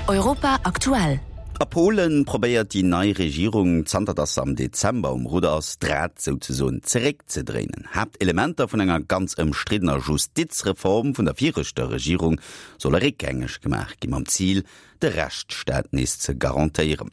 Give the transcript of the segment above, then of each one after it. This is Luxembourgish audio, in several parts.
Europa aktuell. A Polen probéiert déi nei Regierung, zanter datt se am Dezember um Rudder ass, d'Rad souzesoen zeréckzedréinen. Haaptelementer vun enger ganz ëmstriddener Justizreform vun der viregter Regierung solle réckgängeg gemaach ginn, mam Zil, de Rechtsstaat nees ze garantéieren.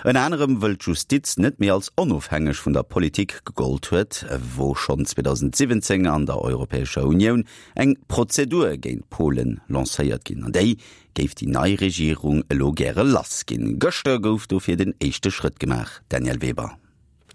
Ënner anerem wëll d'Justiz net méi als onofhängeg vun der Politik gegollt huet, wor schonn 2017 an der Europäescher Unioun eng Prozedur géint Polen lancéiert ginn. An déi géif déi nei Regierung elo gäre lass ginn. Gëschter gouf dofir den éischte Schrëtt gemaach, Danièle Weber.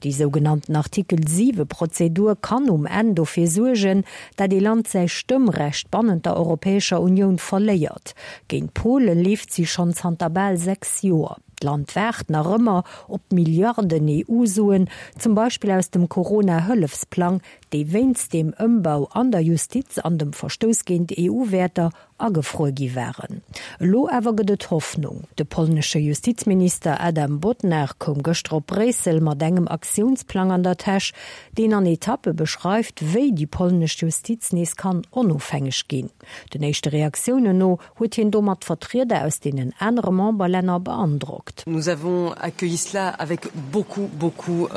Déi sougenannten Artikel 7 Prozedur kann um Enn dofir suergen, dat ee Land säi Stëmmrecht bannent der Europäescher Unioun verléiert. Géint Pole leeft si schonn zanter bal 6 Joer. D'Land waart nach ëmmer op Milliarden EU-Suen, zum Beispill aus dem Corona-Hëllefsplang, déi wéinst deem Ëmbau an der Justiz an dem Verstouss géint EU-Wäerter agefruer gi waren. Elo awer gëtt et Hoffnung. De polnesche Justizminister Adam Bodnar koum gëschter op Bréissel mat engem Aktiounsplang an der Täsch, deen an Etappe beschreift, wéi déi polnesch Justiz nees kann onofhängeg ginn. Den éischte Reaktiounen no huet hien domat d'Vertrieder aus deenen anere Memberlänner beandrockt. Nous avons accueilli cela avec beaucoup, beaucoup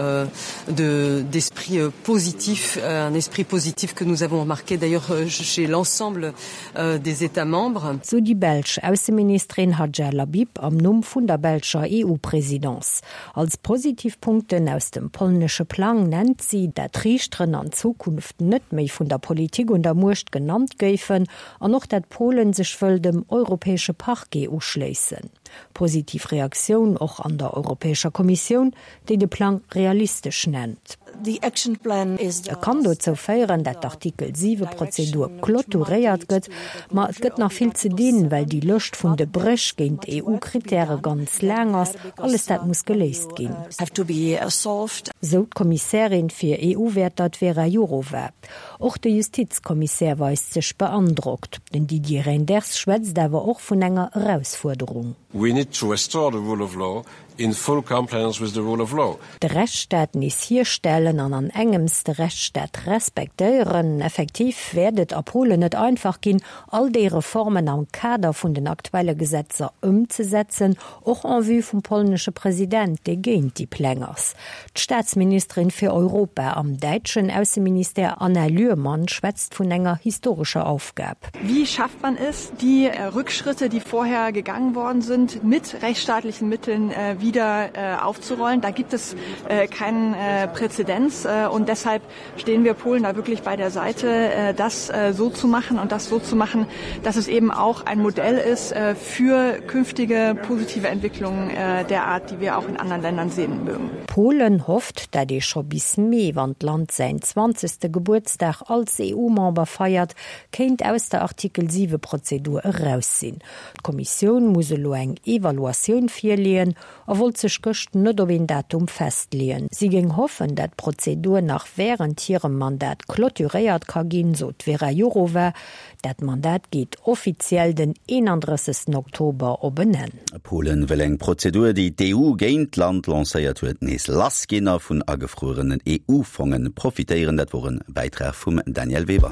de d'esprit positif, un esprit positif que nous avons remarqué d'ailleurs chez l'ensemble des États membres. Sou déi belsch Ausseministerin Hadja Lahbib am Numm vun der belscher EU-Presidence. Als positiv Punkten aus dem polnesche Plang nennt si, dat d'Riichteren an Zukunft net méi vun der Politik un der Muecht genannt géifen an och dat Polen sech wëll dem europäesche Parquet uschléissen. Positiv Reaktioun och an der Europäescher Kommissioun, déi de Plang realistesch nennt. E kann dozou féieren, dat d'Artikel 7 Prozedur clôturéiert gëtt, ma et gëtt nach vill ze dinn, well déi Lëscht vun de Bréch géint EU-Krittäre ganz laang ass. Alles dat muss geléist ginn. Sou d'Kommissärin fir EU-Wäerter, d'Vera Jourova. Och de Justizkommissär weist sech beandrockt. Den Didier Reynders schwätzt awer och vun enger Erausfuerderung. We need to restore the rule of law in full compliance with the rule of law. De Rechtsstaat nees hierstellen an an engems de Rechtsstaat respektéieren. Effektiv wäert et a Polen net einfach ginn, all déi Reformen am Kader vun den aktuelle Gesetzer ëmzesetzen, och en vue vum polnesche President, dee géint déi Pläng ass. D'Staatsministerin fir Europa am däitschen Ausseministère Anna Lührmann schwätzt vun enger historescher Aufgab. Wie schafft man es, die Rückschritte, die vorher gegangen worden sind, mit rechtsstaatlichen Mitteln wieder aufzurollen? Da gibt es keinen Präzedenz und deshalb stehen wir Polen da wirklich bei der Seite, das so zu machen und das so zu machen, dass es eben auch ein Modell ist für künftige positive Entwicklungen der Art, die wir auch in anderen Ländern sehen mögen. Polen hofft, dat ee scho bis Mee, wann d'Land säin zwanzegste Gebuertsdag als EU-Member feiert, kéint aus der Artikel 7 Prozedur eraus sinn. D'Kommissioun muss elo eng Evaluatioun virleeën a wollt sech gëscht net op een Datum festleeën. Si géing hoffen, dat d'Prozedur nach wärend hirem Mandat clôturéiert ka ginn, sot d'Vera Jourova. Dat Mandat geet offiziell den 31 Oktober op en Enn. Polen wëll eng Prozedur, déi d'EU géint d'Land lancéiert huet, nees lassginn a vun agefruerenen EU-Fonge profitéieren. Dat wor e Bäitrag vum Danièle Weber.